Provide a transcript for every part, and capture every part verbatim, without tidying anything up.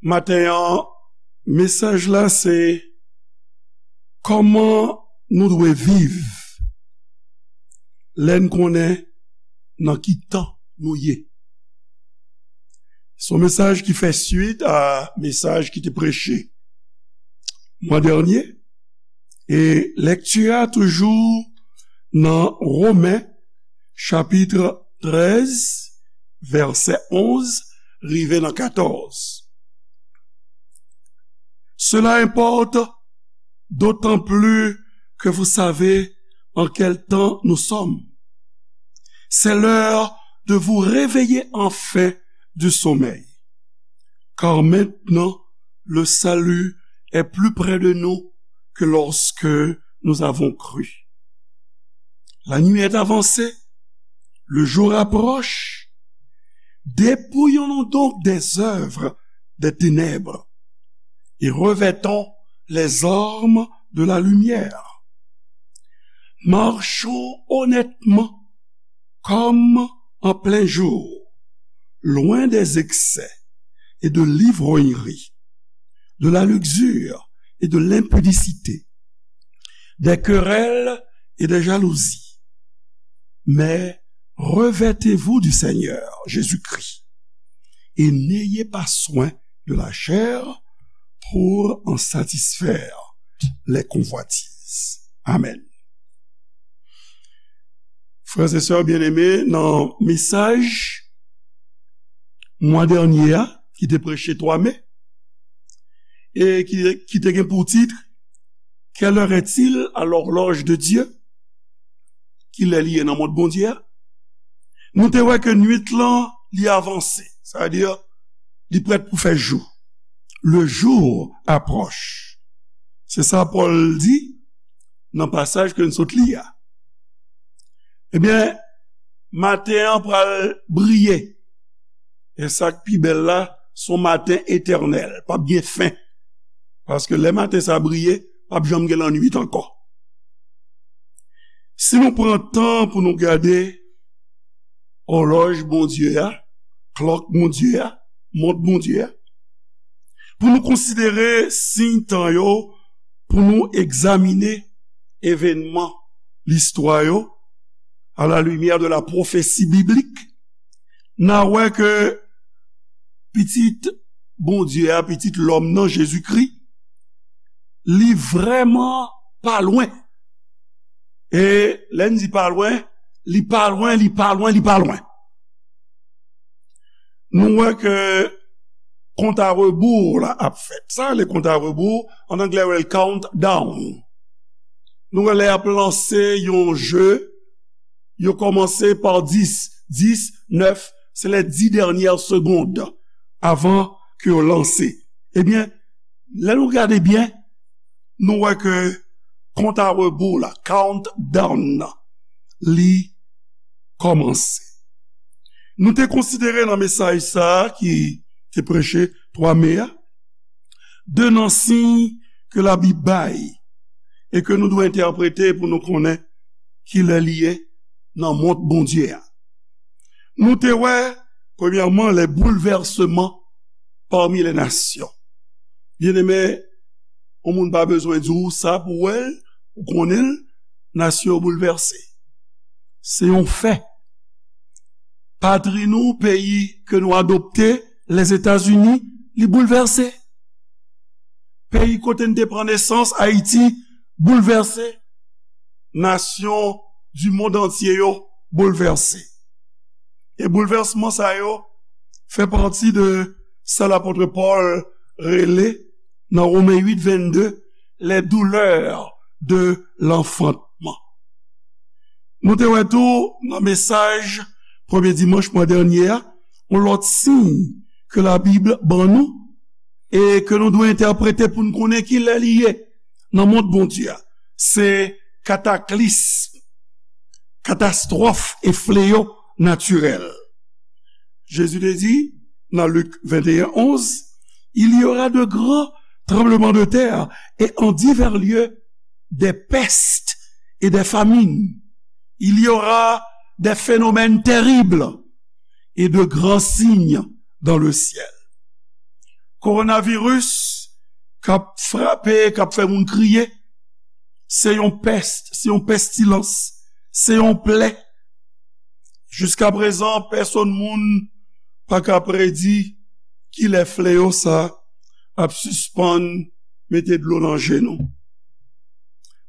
Maten an, mesaj la se kòman nou dwe viv lè n konnen nan ki tan nou ye. Se yon mesaj ki fè swit a mesaj ki te preche mwa dènye. E lekti a toujou nan Women, chapit trèz, vèsè onz rive nan katòz. Cela importe d'autant plus que vous savez en quel temps nous sommes. C'est l'heure de vous réveiller enfin du sommeil. Car maintenant, le salut est plus près de nous que lorsque nous avons cru. La nuit est avancée, le jour approche. Dépouillons-nous donc des œuvres des ténèbres et revêtons les armes de la lumière. Marchons honnêtement comme en plein jour, loin des excès et de l'ivrognerie, de la luxure et de l'impudicité, des querelles et des jalousies. Mais revêtez-vous du Seigneur Jésus-Christ et n'ayez pas soin de la chair pour en satisfaire les convoitises. Amen. Frè e sè byeneme, nan mesaj mwa dènye a, ki te preche twa me, e ki, ki te gen pou tit, Quelle heure est-il à l'horloge de Dieu? Kilè li ye nan mont Bondye a? Nou te wè ke nwit lan, li avanse. Sa vle di, li prèt pou fè jou. Le jour approche. Se sa Pòl di nan pasaj ke n sot li a. Ebyen, maten an pral briye. E sa k pi bèl la, se yon maten etènèl, p ap gen fen. Paske lè maten sa briye, p ap janm gen lannwit ankò. Si nou pran tan pou nou gade òlòj Bondye a, klòk Bondye a, mont Bondye a, pou nou konsidere siy tan yo, pou nou egzamine evènman listwa yo, à la lumière de la prophétie biblique, n a wè ke pitit Bondye a, pitit lòm nan, Jezikri, li vrèman pa lwen. E lè n di pa lwen, li pa lwen, li pa lwen, li pa lwen. Nou wè ke kont a rebou la ap fèt. Sa rele kont a rebou, an anglè yo rele countdown. Nou wè lè y ap lanse yon je, yo kòmanse pa dis, dis, nèf, se les dix dernières secondes avan ke yo lanse. Ebyen, lè nou gade byen, nou wè ke kont a rebou la, countdown nan, li kòmanse. Nou te konsidere nan mesaj sa a ki te preche twa me a, de nan siy ke Labib bay e ke nou dwe entèprete pou nou konnen kilè li ye nan mont Bondye a. Nou te wè, premyèman, les bouleversements parmi les nations. Byeneme, yon moun pa bezwen di w sa pou w wè l, ou konnen l, nasyon yo boulvèse. Se yon fè. Patri nou, peyi ke nou adopte, Lèzetazini, li boulvèse. Peyi kote n te pran nesans, Ayiti, boulvèse. Nasyon du monde entier yo boulvèse. E boulvèsman sa yo fè pati de sa lapot Pòl rele nan Women uit vennde, les douleurs de l'enfantement. Nou te wè tou nan mesaj premye dimanch mwa dènye a, yon lòt siy ke Labib ban nou e ke nou dwe entèprete pou n konnen kilè li ye nan mond Bondye a. Se kataklism, katastwòf e fleyo natirèl. Jezi te di nan Lik venteyen onz, il y aura de grands tremblements de terre et en divers lieux des pestes et des famines. Il y aura des phénomènes terribles et de grands signes dans le ciel. kowonaviris k ap frape, k ap fè moun kriye, se yon pès, se yon pestilans, se yon plè. Jiskaprezan, pèsonn moun pa ka predi kilè fleyo sa ap sispann mete dlo nan je nou.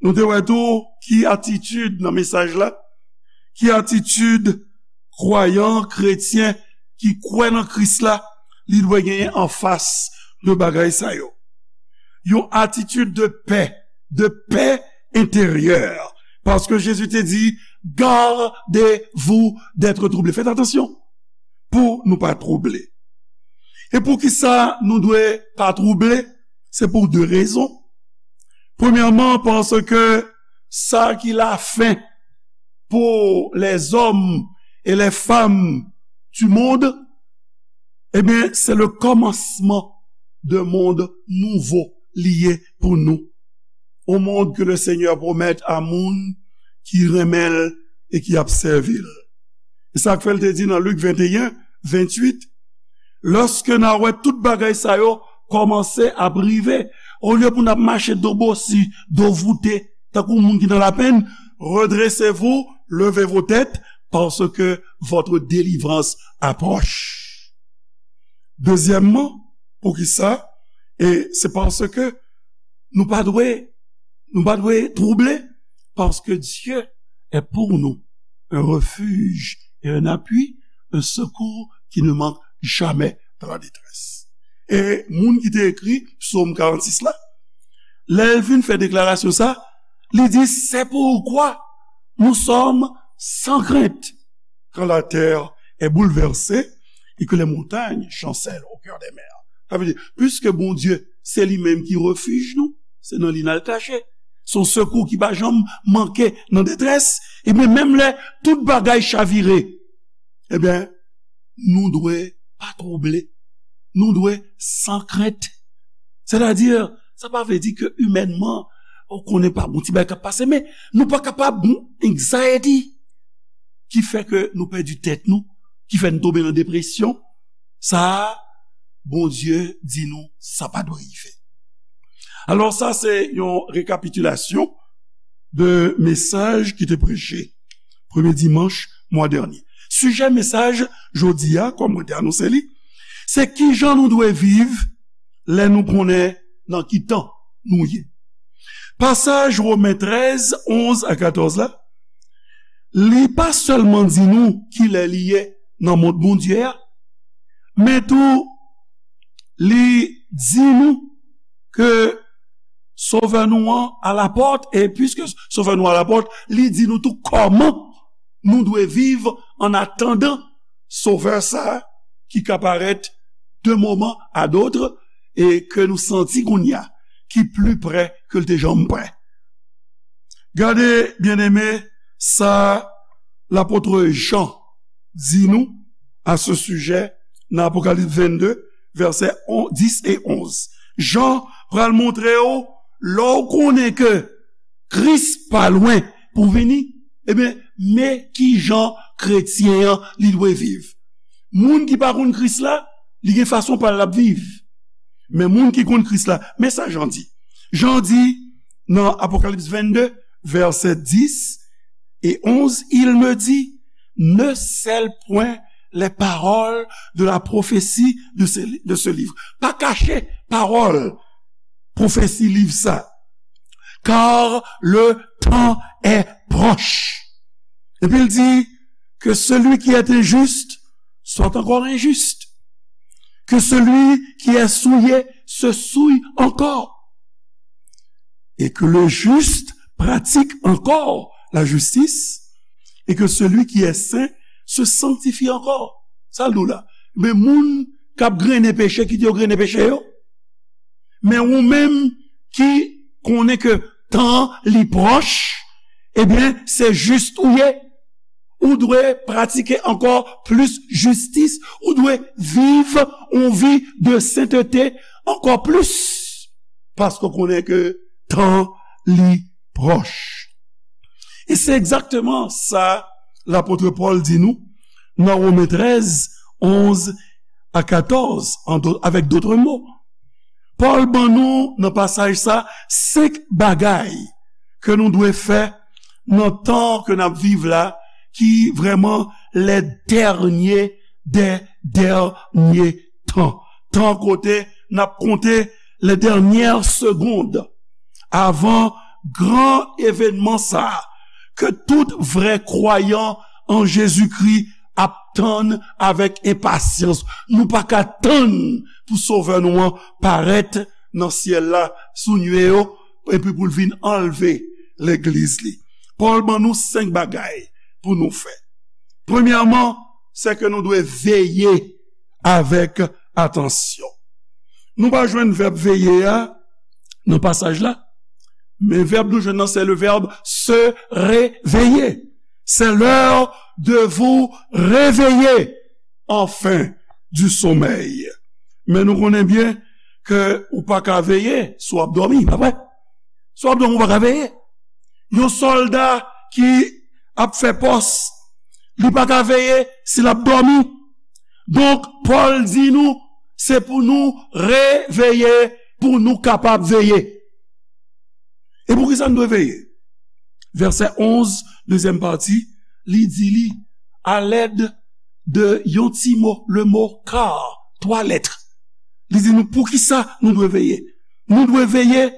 Nou te wè tou ki atitid nan mesaj la, ki atitid kwayan, kretyen ki kwè nan Kris la, li dwe genyen anfas de bagay sa yo. Yon atitid de pè, de pè enteryè. Paske Jezi te di, gardez-vous d'être troublés. Fèt atansyon pou nou pa twouble. E poukisa nou dwe pa twouble? Se pou de rezon. Premyèman, paske sa ki lafen pour les hommes et les femmes du monde, ebyen, se le kòmansman de mond nouvo li ye pou nou. Yon mond ke le Senyè pwomèt a moun ki renmen l e ki ap sèvi l. E sa k fè l te di nan Lik venteyen, venntuit, lòske n a wè tout bagay sa yo kòmanse ap rive, olye pou n ap mache do bosi, do voute, tankou moun ki nan lapenn, redressez-vous, levez vos têtes, parce que votre délivrance approche. Dezyèmman, poukisa? E se paske nou pa dwe, nou pa dwe twouble, parce que Dieu est pour nous un refuge et un appui, un secours qui ne manque jamais dans la détresse. E moun ki te ekri Psaume quarante-six la, lè l vin fè deklarasyon sa, li di, c'est pourquoi nous sommes sans crainte quand la terre est bouleversée et que les montagnes chancellent au cœur des mers. Sa vle di, piske Bondye se li menm ki refij nou, se nan li n al kache. Se yon sekou ki pa janm manke nan detrès. Ebyen, menm lè tout bagay chavire, ebyen, nou dwe pa twouble. Nou dwe san krent. Sètadi, sa pa vle di ke imènman, ou konnen pa bon ti bagay k ap pase, men nou pa kapab gon anxiety ki fè ke nou pèdi tèt nou, ki fè nou tonbe nan depresyon. Sa a, Bondye di nou, sa pa dwe rive. Alò, sa se yon rekapitilasyon de mesaj ki te preche premye dimanch mwa dènye. Sijè mesaj jodi a, kòm mwen te anonse li, se kijan nou dwe viv lè nou konnen nan ki tan nou ye. Pasaj Women trèz, onz a katòz la, li pa sèlman di nou kilè li ye nan mond Bondye a, men tou li di nou ke Sovè nou an alapòt, e piske Sovè nou alapòt, li di nou tou kòman nou dwe viv an atandan Sovè sa a ki ka parèt de moman a dòt e ke nou santi kounye a ki pli prè ke l te janm prè. Gade, byeneme, sa lapot Jan di nou a se sijè nan Apokalips vennde, vèsè on, dis e onz. Jan pral montre w, lè w konnen ke Kris pa lwen pou vini, ebyen, men kijan kretyen an li dwe viv. Moun ki pa konn Kris la, li gen fason pa l l ap viv. Men moun ki konn Kris la, men sa Jan di. Jan di nan Apokalips vennde, vèsè dis e onz, il me dit, ne scelle point les paroles de la prophétie de ce, de ce livre. Pa kache pawòl pwofesi liv sa. Car le temps est proche. Epi l di, que celui qui est injuste soit encore injuste. Que celui qui est souillé se souille encore. Et que le juste pratique encore la justice. Et que celui qui est saint se sanctifie encore. Sa l di w la. Men moun k ap grennen peche, kite yo grennen peche yo. Men ou menm ki konnen ke tan li pwòch, ebyen, se jis ou ye. Ou dwe pratike ankò plis jistis. Ou dwe viv yon vi de sentete ankò plis. Paske w konnen ke tan li pwòch. E se egzakteman sa lapot Pòl di nou nan Women trèz, onz a katòz, an do-, avèk dòt mo. Pòl ban nou nan pasaj sa senk bagay ke nou dwe fè nan tan ke n ap viv la, ki vrèman les derniers des derniers temps. Tan kote n ap konte les dernières secondes avan gran evènman sa a ke tout vrè kwayan an Jezikri ap tann avèk enpasyans. Nou pa ka tann pou Sovè nou an parèt nan syèl la sou nye yo, epi pou l vin anlve legliz li. Pòl ban nou senk bagay pou nou fè. Premyèman, se ke nou dwe veye avèk atansyon. Nou pa jwenn vèb veye a nan pasaj la, men vèb nou jwenn nan se le verbe se réveiller. C'est l'heure de vous réveiller enfin du sommeil. Men nou konnen byen ke ou pa ka veye si w ap dòmi, pa vre? Si w ap dòmi, ou pa ka veye. Yon sòlda ki ap fè pòs, li pa ka veye si l ap dòmi. Donk, Pòl di nou, se pou nou reveye, pou nou kapab veye. E poukisa n dwe veye? Vèsè onz, dezyèm pati, li di li, alèd de yon ti mo, le mo car, twa lèt. Li di nou poukisa nou dwe veye. Nou dwe veye,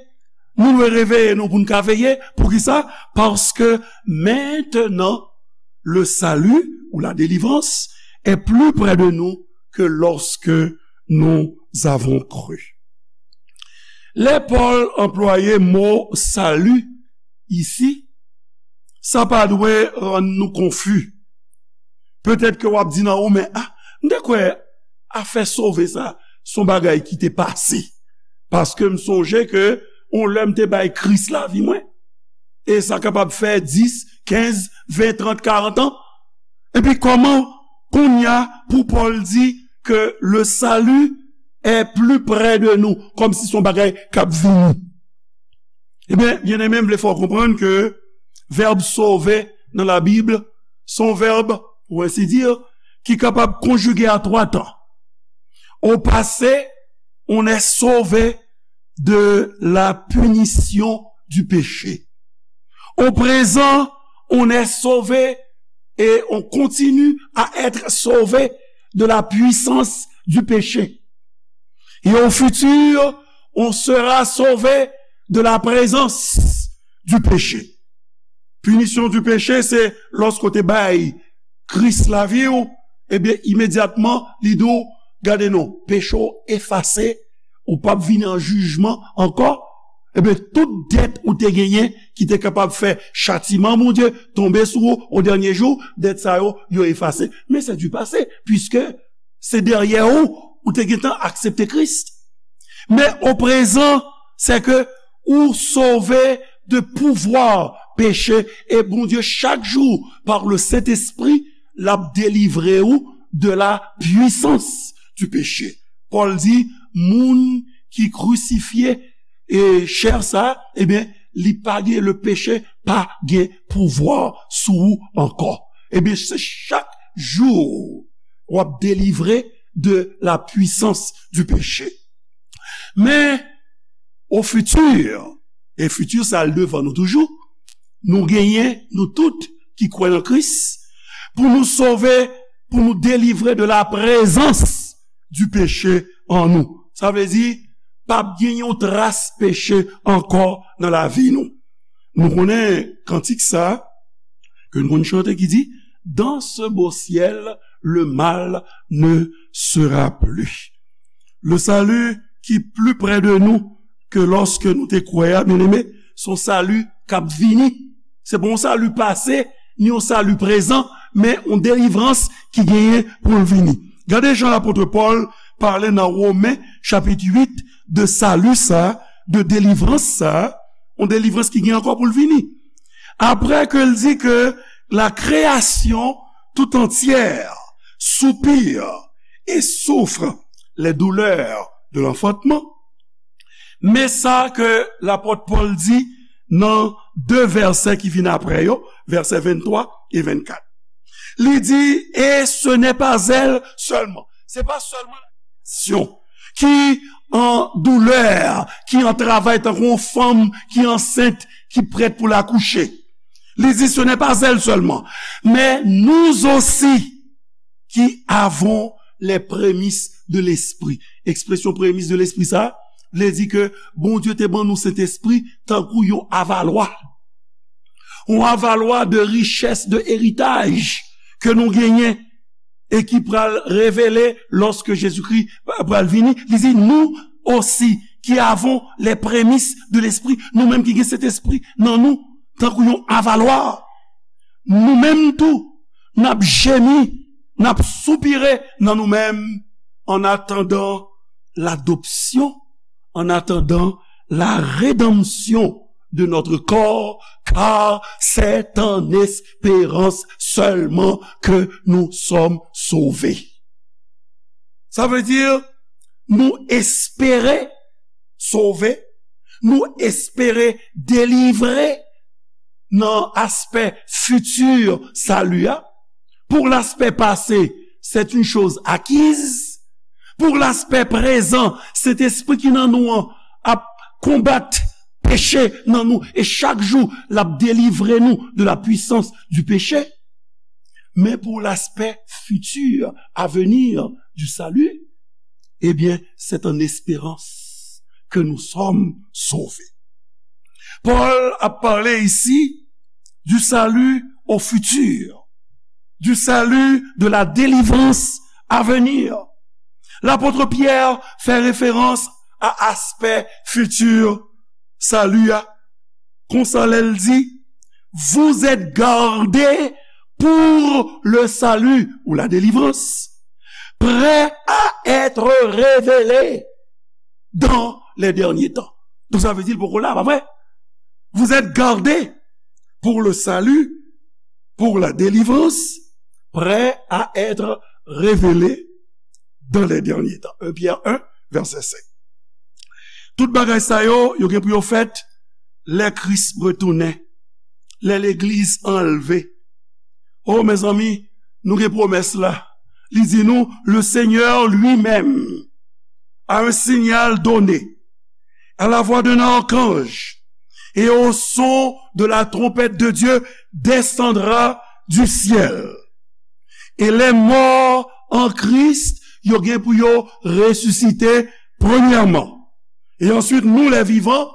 nou dwe reveye nou pou n ka veye. Poukisa? Parce que maintenant, le salut ou la délivrance est plus près de nous que lorsque nous avons cru. Lè Pòl anplwaye mo sali isi, sa pa dwe rann nou konfi. Petèt ke w ap di nan ou, men, a, m te kwè afè sove sa, se yon bagay ki te pase. Paske m sonje ke yon lè m te bay Kris lavi mwen. E sa kapab fè dis, kenz, ven, trant, karant an. Epi kòman kounye a pou Pòl di ke le salut est plus près de nous, kòmsi se yon bagay k ap vini? Ebyen, byeneme, m vle fè w konprann ke vèb sove nan Labib, se yon vèb, pour ainsi dire, ki kapab konjige a twa tan. Au passé, on est sauvé de la punition du péché. Au présent, on est sauvé et on continue à être sauvé de la puissance du péché. Et au futur, on sera sauvé de la présence du péché. Punition du péché, se lòske w te bay Kris lavi w, ebyen, imedyatman, li di w, gade non, peche w efase, ou p ap vini an jijman ankò. Ebyen, tout dèt ou te genyen ki te kapab fè chatiman Bondye tonbe sou ou o dènye jou, dèt sa yo, yo efase. Men se du passé, puiske se dèyè ou, ou te gentan aksepte Kris. Men o prezan, se ke ou sove de pouvwa peche, e Bondye, chak jou, par le Saint-Esprit, l ap delivre ou de la puissance du péché. Pòl di, moun ki krisifye e chè sa, ebyen, li pa gen, le peche pa gen pouvwa sou ou ankò. Ebyen, se chak jou w ap delivre de la puissance du péché. Men, au futur, e futur sa al devan nou toujou, nou genyen, nou tout ki kwè nan Kris, pou nou sove, pou nou delivre de la prezans du péché an nou. Sa vle di, p ap gen yon tras peche ankò nan lavi nou. Nou konnen kantik sa, ke nou konn chante ki di, dans ce beau ciel, le mal ne sera plus. Le salut ki pli prè de nou ke lòske nou te kwè a, byeneme, se yon sali k ap vini. Se pa yon sali pase, ni yon sali prezan, men yon delivrans ki genyen pou l vini. Gade jan lapot Pòl pale nan Women, chapit uit, de sali sa, de delivrans sa, yon delivrans ki gen ankò pou l vini. Après que l di que la création tout entière soupire et souffre les douleurs de l'enfantement, men sa ke lapot Pòl di nan de vèsè ki vin apre yo, vèsè venntwa e vennkat. Li di, et ce n'est pas elle seulement. Se pa sèlman la kréasyon ki an doulè, ki an travay tankou yon fanm ki ansent, ki prèt pou l akouche. Li di, ce n'est pas elle seulement, mais nous aussi qui avons les prémices de l'esprit. Ekspresyon premis de lespri sa, vle di ke Bondye te ban nou Sentespri tankou yon avalwa. Yon avalwa de richès, de eritaj ke nou genyen e ki pral revele lòske Jezikri pral vini. Li di, nous aussi qui avons les prémices de l'esprit, nou menm ki gen Sentespri nan nou, tankou yon avalwa, nou menm tou, n ap jemi, n ap soupire nan nou menm, en attendant l'adoption, en attendant la rédemption de notre corps, car c'est en espérance seulement que nous sommes sauvés. Sa vle di, nou espere sove, nou espere delivre nan aspè fiti sali a. Pour l'aspect passé, c'est une chose acquise. Pour l'aspect présent, Sentespri ki nan nou an ap konbat peche nan nou, e chak jou, l ap delivre nou de la puissance du péché. Mais pour l'aspect futur, à venir du salut, eh bien, c'est en espérance que nous sommes sauvés. Paul a parlé ici du salut au futur, du salut, de la délivrance à venir. L'apôtre Pierre fait référence à aspect futur salut a. Konsa lè l di, vous êtes gardés pour le salut ou la délivrance, prêts à être révélés dans les derniers temps. Donk sa vle di l poko la, pa vre? Vous êtes gardés pour le salut, pour la délivrance, prêts à être révélés dans les derniers temps. Un Pierre un, verset cinq. Tout bagay sa yo, yo gen pou yo fèt lè Kris retounen, lè legliz anlve. O, mezanmi, nou gen pwomès la. Li di nou, le Seigneur lui-même, à un signal donné, à la voix d'un archange et au son de la trompette de Dieu, descendra du ciel. Et les morts en Christ, yo gen pou yo resisite premyèman. Et ensuite, nous, les vivants,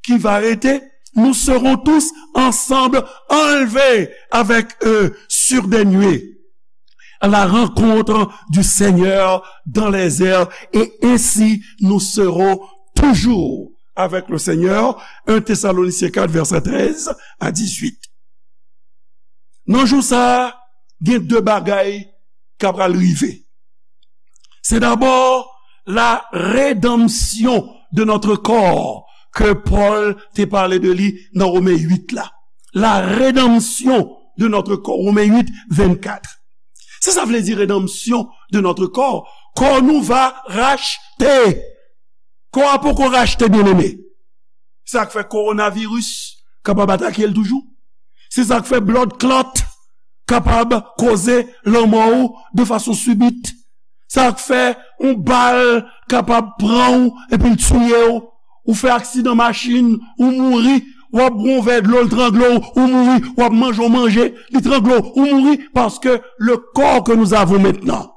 qui va rester, nous serons tous ensemble enlevés avec eux sur des nuées à la rencontre du Seigneur dans les airs, et ainsi nous serons toujours avec le Seigneur. Un Thessaloniciens quatre, verset treize à dix-huit. Nan jou sa a, gen de bagay k ap pral rive. C'est d'abord la rédemption de notre corps ke Pòl te pale de li nan Women uit la. La rédemption de notre corps, Women uit, vennkat. Sa sa vle di, rédemption de notre corps? Kò nou va rachte. Kò a poko rachte, byeneme. Sa k fè kowonaviris kapab atake l toujou. Se sa k fè bloodclaat kapab koze lanmò w de fason sibit. Sa k fè yon bal kapab pran w epi l tiye w. Ou fè aksidan machin, ou mouri, w ap bwè yon vè dlo, l trangle w, ou mouri, w ap manje yon manje, li trangle w, ou mouri, paske le corps que nous avons maintenant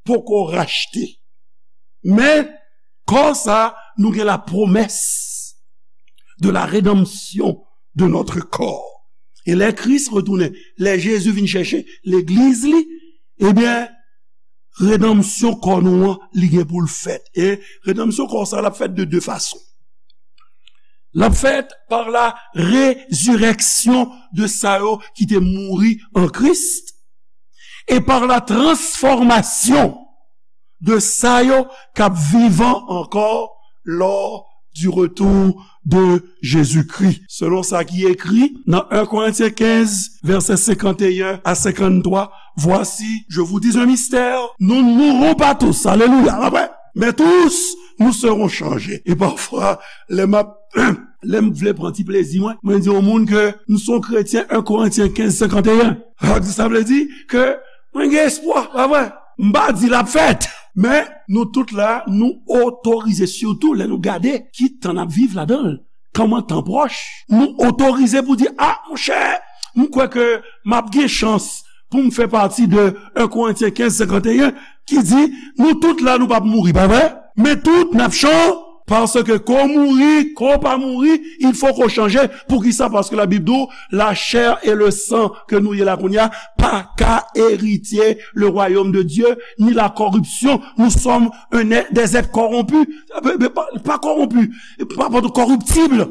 poko rachte. Men, kò sa, nou gen la promesse de la rédemption de notre corps. E lè Kris retounen, lè Jezi vin chèche legliz li, ebyen, redanmsyon kò nou an, li gen pou l fèt. E redanmsyon kò sa, l ap fèt de de fason. L ap fèt par la résurrection de sa yo ki te mouri an Kris, et par la transformation de sa yo k ap vivan ankò lors du retour de Jésus-Christ. Selon sa ki ekri nan un Korentyen kenz, vèsè senkanteyen a senkanntwa, voici, je vous dis un mystère, nous ne mourrons pas tous. Alelouya. Amen. Mais tous, nous serons changés. E pafwa, lè m ap, lè m vle pran ti plezi mwen, mwen di yon moun ke m se yon kretyen, un Korentyen kenz, senkanteyen. Sa vle di ke mwen gen espwa, pa vre? M pa di l ap fèt. Men, nou tout la, nou otorize, sitou lè nou gade ki tan n ap viv ladan l, kòman tan pwòch, nou otorize pou di, a, monchè, m kwè ke m ap gen chans pou m fè pati de en Korentyen kenz senkanteyen, ki di, nou tout la, nou p ap mouri, pa vre? Men tout, n ap chan, paske ke ke w mouri, ke w pa mouri, il faut que w chanje. Poukisa? Paske Labib di w, la chair et le sang ke nou ye la kounye a, pa ka eritye le royaume de Dieu, ni la corruption. Nous sommes un être, des êtres corrompus. Pa, pa, pa kòwonpi, pa, pa kòriptib.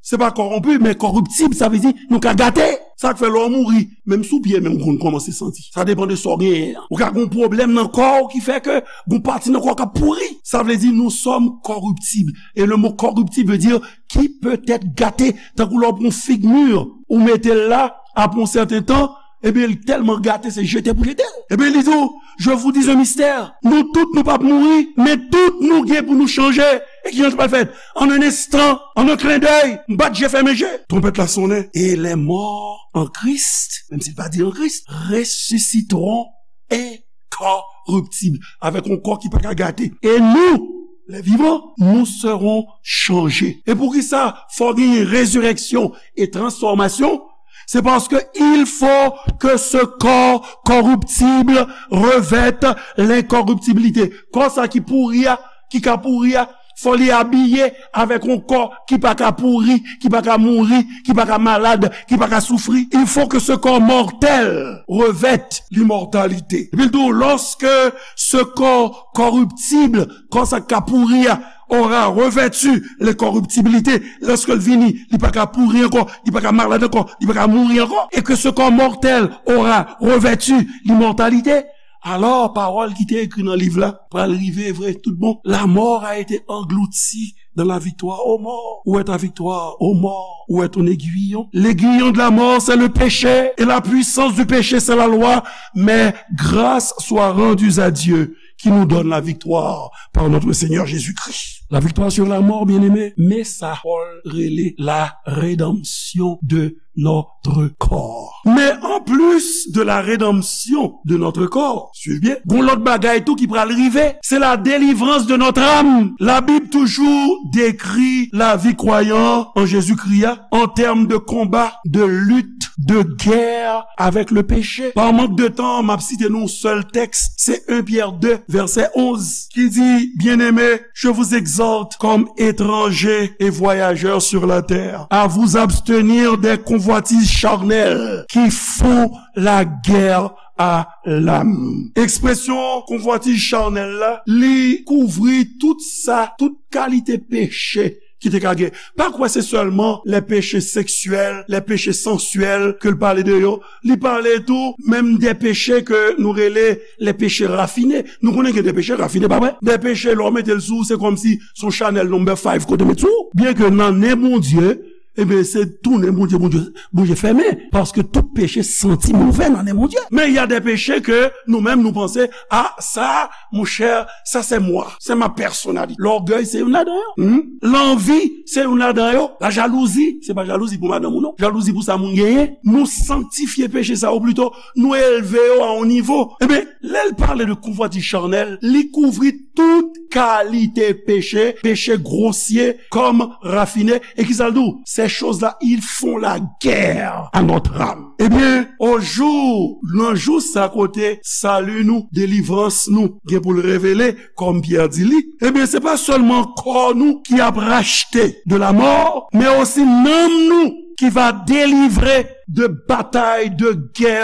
Se pa kòwonpi, men kòriptib, sa vle di nou ka gate. Sa k fè lè w mouri, menm si w byen, men w konn kòmanse santi. Sa depann de sa w genyen an. Ou ka gen yon pwoblèm nan kò w ki fè ke gen yon pati nan kò w k ap pouri. Sa vle di nous sommes corruptibles. Et le mot corruptible veut dire qui peut être gâté. Tankou lè w pran yon fig mi, ou mete l la, apre yon sèten tan, ebyen, li tèlman gate, se jete pou jete l. Ebyen, li di w, je vous dis un mystère. Nou tout, nou p ap mouri, men tout nou gen pou nou chanje. E ki jan sa pral fèt? En un instant, en un clin d'œil, m bat je fèmen je. Twonpèt la sonnen. Et les morts en Christ, menm si l pa di en Christ, ressusciteront incorruptibles, avec un corps qui pa ka gate. Et nous, les vivants, nous serons changés. E poukisa fò genyen rezireksyon e transfòmasyon? C'est parce que il faut que ce corps corruptible revête l'incorruptibilité. Kò sa ki pouri a, ki ka pouri a, fò li abiye avèk yon kò ki pa ka pouri, ki pa ka mouri, ki pa ka malad, ki pa ka soufri. Il faut que ce corps mortel revête l'immortalité. Epi l di w, lorsque ce corps corruptible, kò sa k ka pouri a, aura revêtu l'incorruptibilité, lòske l vini, li pa ka pouri ankò, li pa ka malad ankò, li pa ka mouri ankò, et que ce corps mortel aura revêtu l'immortalité, alò pawòl ki te ekri nan liv la pral rive vre tout bon. La mort a été engloutie dans la victoire. Ô mort, où est ta victoire? Ô mort, où est ton aiguillon? L'aiguillon de la mort, c'est le péché, et la puissance du péché, c'est la loi. Mais grâce soit rendue à Dieu qui nous donne la victoire par notre Seigneur Jésus-Christ. La victoire sur la mort, bien-aimé, mésa Pòl rele la rédemption de notre corps. Mais en plus de la rédemption de notre corps, suiv byen, gon lòt bagay tou ki pral rive, c'est la délivrance de notre âme. La Bible toujours décrit la vie croyant en Jésus-Christ en termes de combat, de lutte, de guerre avec le péché. Par manque de temps, m ap site nou yon sèl tèks, se en Pyè de, vèsè onz, ki di, bien-aimés, je vous exhorte comme étrangers et voyageurs sur la terre à vous abstenir des convoitises charnelles qui font la guerre à l'âme. Ekspresyon konvwatiz chanèl la, li kouvri tout sa, tout kalite peche ki te ka gen. Pa kwè se sèlman les péchés sexuels, les péchés sensuels ke l pale de yo. Li pale tou menm de peche ke nou rele les péchés raffinés. Nou konnen gen de peche rafine, pa vre? De peche, lè w mete l sou ou, se kòmsi se yon chanèl number five kote w met sou ou. Byen ke nan nen Bondye, ebyen, se tounen Bondye, Bondye, Bondye fèmen. Paske tout peche santi move nan nen Bondye. Men y a des péchés ke nou menm nou panse, a, sa, monchè, sa se mwa, se ma personnalité. Lògèy se youn ladan yo. Hmm? Lanvi se youn ladan yo. Lajalouzi, se pa jalouzi pou madanm ou non. Jalouzi pou sa moun genyen. Nou sanktifye peche sa yo plito, nou elve yo a yon nivo. Ebyen, lè l pale de konvwatiz chanèl, li kouvri tout kalite peche, peche gwosye kòm rafine. E kisa l di w? Ces choses-là, ils font la guerre à notre âme. Ebyen, o jou, nan jou sa kote sali nou, delivrans nou, gen pou l revele, kòm Pyè di li, ebyen, se pa sèlman kò nou ki ap rachte de la mort, men osi nanm nou ki va delivre de batay, de gè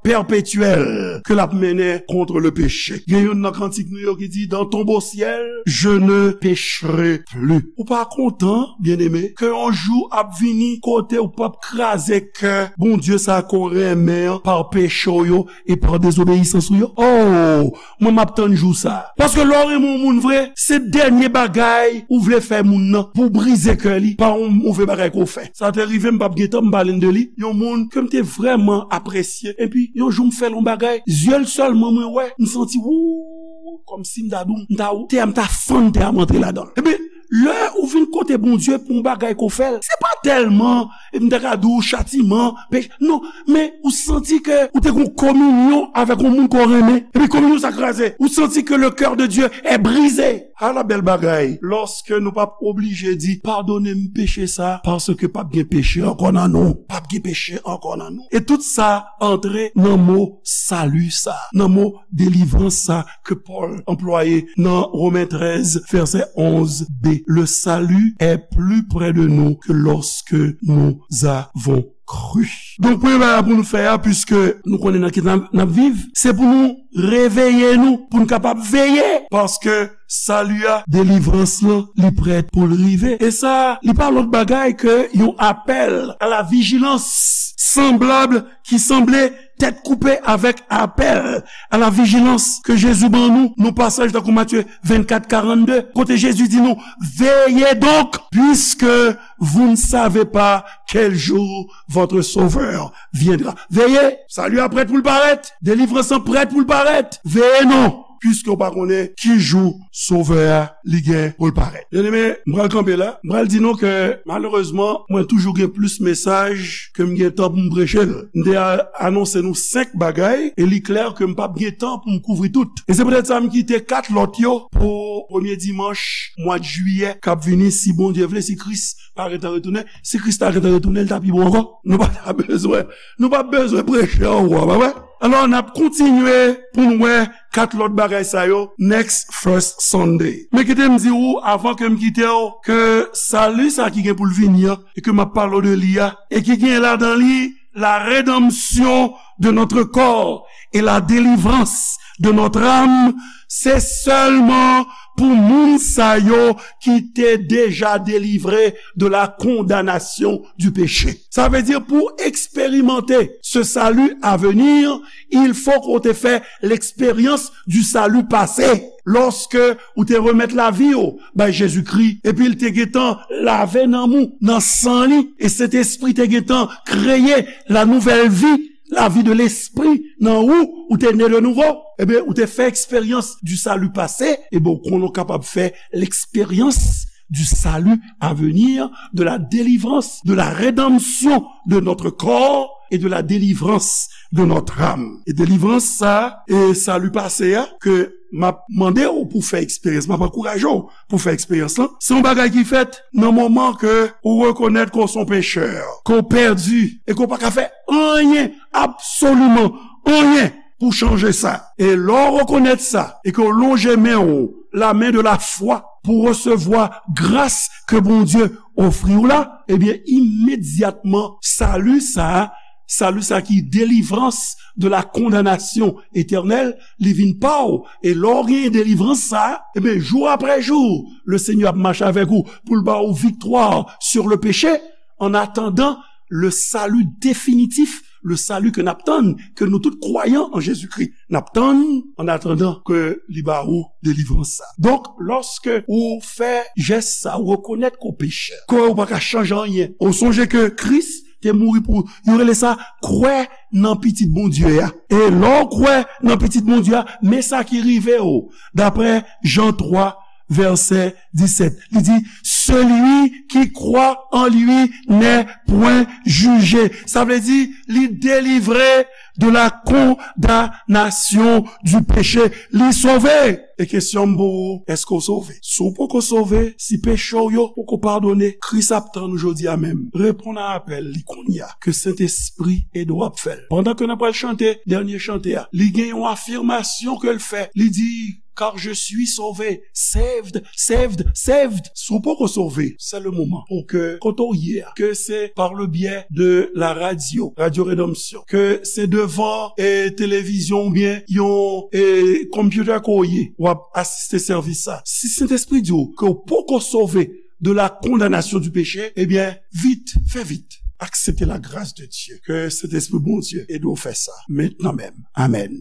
pèpetyèl ke l ap mennen kont le péché. Gen youn nan kantik nou yo ki di, dans ton beau ciel, je ne pécherai plus. Ou pa kontan, byeneme, ke yon jou ap vini kote w p ap kraze kè Bondye sa ke w renmen an pa peche w yo e pa dezobeyisans ou yo? Oh, mwen m ap tann jou sa. Paske lè w renmen yon moun vre, se dènye bagay ou vle fè moun nan pou w brize kè li pa yon move bagay ke w fè. Sa te rive m p ap gen tan m pale n de li. Yon moun ke m te vrèman apresye. Epi, yon jou m fè l yon bagay, zye l sèlman mwen wè, m santi, wou, kòmsi m ta di w, m ta, tè a m ta fann tè a m antre ladan l. Epi, Lè ou vin kote Bondye pou yon bagay ke w fè l, se pa tèlman, e m ta ka di w, chatiman, peche. Non, men ou santi ke ou te gen yon kominyon avèk yon moun ke w renmen. Epi kominyon sa kraze. Ou santi ke le cœur de Dieu est brisé. Ala bèl bagay. Lòske nou p ap oblije di, "Padone m peche sa," paske p ap gen peche ankò nan nou. P ap gen peche ankò nan nou. E tout sa antre nan mo sali sa, nan mo delivrans sa ke Pòl anplwaye nan Women trèz, vèsè onz b. Le salut est plus près de nous que lorsque nous avons cru. Donk, premye bagay pou nou fè a, piske nou konnen nan ki n ap, n ap viv, se pou nou reveye nou, pou nou kapab veye, paske sali a, delivrans lan, li prèt pou l rive. E sa, li pa lòt bagay ke yon apèl à la vigilance, sanblab, ki sanble tèt koupe avèk apèl à la vigilance ke Jezi ban nou, nan pasaj tankou Matye vennkat karannde, kote Jezi di nou, "Veillez donc, puisque vous ne savez pas quel jour votre Sauveur viendra." Veye, sali a prèt pou l parèt, delivrans lan prèt pou l parèt. Veye non, piske w pa konnen ki jou Sovè a li gen pou l parèt. Byeneme, m pral kanpe la. M pral di nou ke, malerezman, mwen toujou gen plis mesaj ke m gen tan pou m preche l. M te a-, anonse nou senk bagay, e li klè ke m p ap gen tan pou m kouvri tout. E se poutèt sa m kite kat lòt yo pou premye dimanch mwa jiyè k ap vini, si Bondye vle, si Kris pa gentan retounen. Si Kris ta gentan retounen, li ta pi bon ankò. Nou pa ta bezwen, nou pa bezwen preche ankò, pa vre? Alò, n ap kontinye pou n wè kat lòt bagay sa yo next First Sunday. Men kite m di w, avan ke m kite w, ke sali sa ki gen pou l vini an, e ke m ap pale w de li a, e ki gen ladan li la rédemption de notre corps et la délivrance de notre âme, se sèlman pou moun sa yo ki te deja delivre de la condamnation du péché. Sa vle di pou eksperimante ce salut à venir, il faut que w te fè l'expérience du salut passé. Lòske ou te remèt lavi w bay Jezikri, epi l te gentan lave nanm ou nan san li, e Sentespri te gentan kreye la nouvelle vie, la vie de l'esprit nan ou, ou te ne de nouvo, ebyen, ou te fè eksperyans du salut passé, ebyen, ou konnen w kapab fè l'expérience du salut à venir, de la délivrance, de la rédemption de notre corps et de la délivrance de notre âme. E delivrans sa, e sali pase a, ke m ap mande w pou fè eksperyans, m ap ankouraje w pou fè eksperyans lan, se yon bagay ki fèt nan moman ke ou rekonèt ke w se yon pechè, ke w pèdi, e ke w pa ka fè anyen, absoliman anyen, pou chanje sa. E lè w rekonèt sa, e ke w lonje men w, la main de la foi, pou resevwa gras ke Bondye ofri w la, ebyen, imedyatman, sali sa, sali sa ki delivrans de la condamnation éternelle, li vin pa w. E lè w genyen delivrans sa, ebyen, jou apre jou, le Seigneur ap mache avèk ou pou l ba w viktwa sur le péché, en attendant le salut définitif, le salut ke n ap tann, ke nou tout kwayan an Jezikri n ap tann, en attendant ke li ba ou delivrans sa. Donk, lòske ou fè jès sa, ou rekonèt ke w pechè, ke w pa ka chanje anyen, ou sonje ke Kris te mouri pou ou, yo rele sa kwè nan Pitit Bondye a. E lè w kwè nan Pitit Bondye a, men sa ki rive w, daprè Jan twa, vèsè disèt. Li di, celui qui croit en lui n'est point jugé. Sa vle di, li delivre de la condamnation du péché. Li sove. E kesyon m pou ou, èske w sove? Si w poko sove, si peche w yo poko padone, Kris ap tann ou jodi a menm. Reponn a apèl li kounye a, ke Sentespri ede w ap fè l. Pandan ke n ap pral chante dènye chante a, li gen yon afimasyon ke l fè. Li di, car je suis sauvé, saved, saved, saved. Si w poko sove, c'est le moment pour que, kote w ye a, ke se par le biais de la radio, Radio Rédemption, ke se devan, e, televizyon oubyen yon, e, computer ke w ye, w ap asiste sèvis sa. Si Sentespri di w ke w poko sove de la condamnation du péché, ebyen, vit, fè vit. Aksepte la grâce de Dieu. Ke Sentespri Bondye ede w fè sa. Mentnan menm. Amèn.